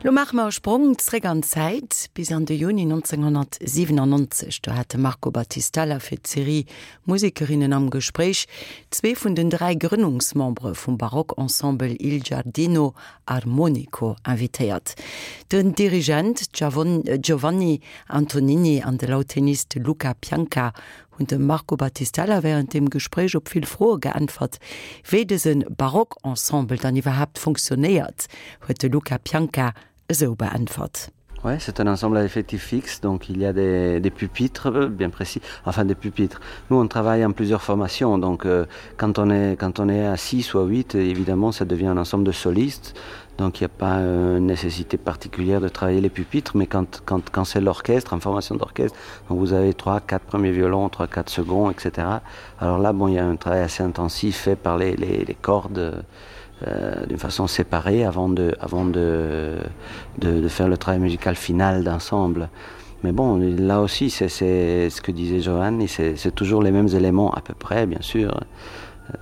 Lo maache mer e Sprong zréck an d'Zäit, bis an de Juni 1997. Do hat de Marco Battistella fir d'Serie Musekerinnen am Gespréich zwee vun den 3 Grënnungsmembere vum Barockensemble Il Giardino Armonico invitéiert, den Dirigent Giovanni Antonini an de Lautenist Luca Pianca hunn dem Marco Battistella wärend dem Gespréich op vill Froe geäntwert. Wéi dëse Barockensemble dann iwwerhaapt fonctionnéiert, huet de Luca Pianca esou beäntwert. Ouais, c'est un ensemble à effectif fixe, donc il y a des, des pupitres bien précis, enfin des pupitres. Nous, on travaille en plusieurs formations, donc euh, quand, on est, quand on est à 6 ou à 8, évidemment, ça devient un ensemble de solistes, donc il n'y a pas euh, une nécessité particulière de travailler les pupitres, mais quand, quand, quand c'est l'orchestre, en formation d'orchestre, donc vous avez 3, 4 premiers violons, 3, 4 seconds, etc. Alors là, bon, il y a un travail assez intensif fait par les, les, les cordes, euh, d'une façon séparée avant de, avant de, de, de faire le travail musical final d'ensemble. Mais bon, là aussi, c'est ce que disait Giovanni, c'est toujours les mêmes éléments à peu près, bien sûr.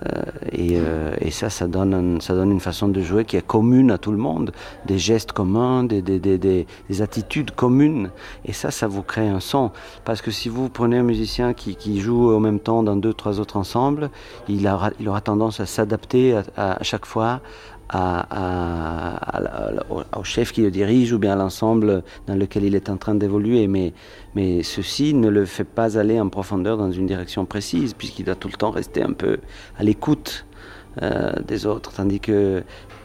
Euh, et, euh, et ça, ça donne, un, ça donne une façon de jouer qui est commune à tout le monde, des gestes communs, des, des, des, des, des attitudes communes. Et ça, ça vous crée un son. Parce que si vous prenez un musicien qui, qui joue en même temps dans deux, trois autres ensembles, il aura, il aura tendance à s'adapter à, à, à chaque fois à, à, à, à, au, au chef qui le dirige ou bien à l'ensemble dans lequel il est en train d'évoluer. Mais, mais ceci ne le fait pas aller en profondeur dans une direction précise, puisqu'il doit tout le temps rester un peu à l'écoute euh, des autres. Tandis que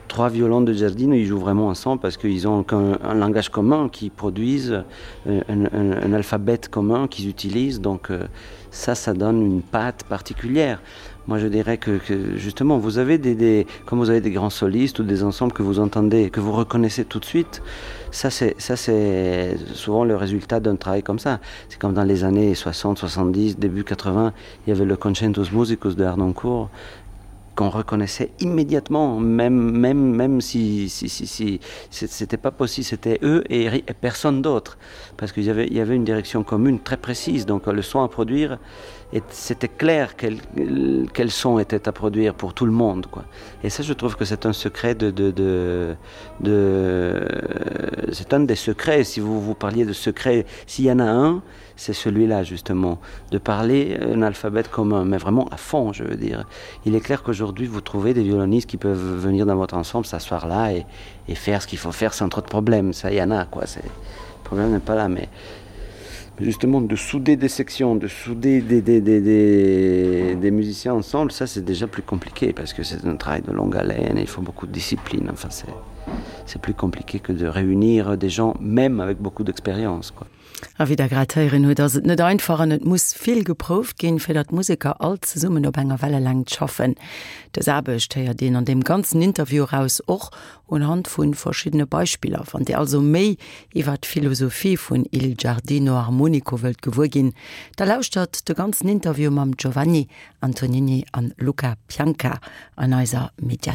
trois violons de Giardino, ils jouent vraiment ensemble parce qu'ils ont un, un langage commun qu'ils produisent, un, un, un alphabet commun qu'ils utilisent. Donc euh, ça, ça donne une patte particulière. Moi, je dirais que, que justement, vous avez des, des, comme vous avez des grands solistes ou des ensembles que vous entendez, que vous reconnaissez tout de suite, ça c'est souvent le résultat d'un travail comme ça. C'est comme dans les années 60, 70, début 80, il y avait le Concentus Musicus de Arnoncourt qu'on reconnaissait immédiatement, même, même, même si, si, si, si c'était pas possible, c'était eux et, et personne d'autre, parce qu'il y avait, il y avait une direction commune très précise, donc le son à produire, et c'était clair quel, quel son était à produire pour tout le monde. Quoi. Et ça, je trouve que c'est un secret de, de, de, de c'est un des secrets, si vous vous parliez de secret, s'il y en a un, c'est celui-là justement, de parler un alphabet commun, mais vraiment à fond, je veux dire. Il est clair qu'aujourd'hui, vous trouvez des violonistes qui peuvent venir dans votre ensemble, s'asseoir là et, et faire ce qu'il faut faire sans trop de problèmes. Ça, il y en a, quoi. Le problème n'est pas là, mais justement de souder des sections, de souder des, des, des, des, des musiciens ensemble, ça c'est déjà plus compliqué parce que c'est un travail de longue haleine et il faut beaucoup de discipline. Enfin, c'est plus compliqué que de réunir des gens même avec beaucoup d'expérience. quoi. A wéi der grad héieren hutt, ass et net einfach an et muss vill geprouft ginn, fir datt d'Museker all zesummen op enger Wellelängt schaffen. Dës Aarbecht héiert een an deem ganzen Interview eraus, och unhand vu verschiddene Beispiller. Wann Dir also méi iwwer d'Philosophie vun Il Giardino Armonico wëllt gewuer ginn, da lauschtert de ganzen Interview mam Giovanni Antonini an Luca Pianca an eiser Mediathéik.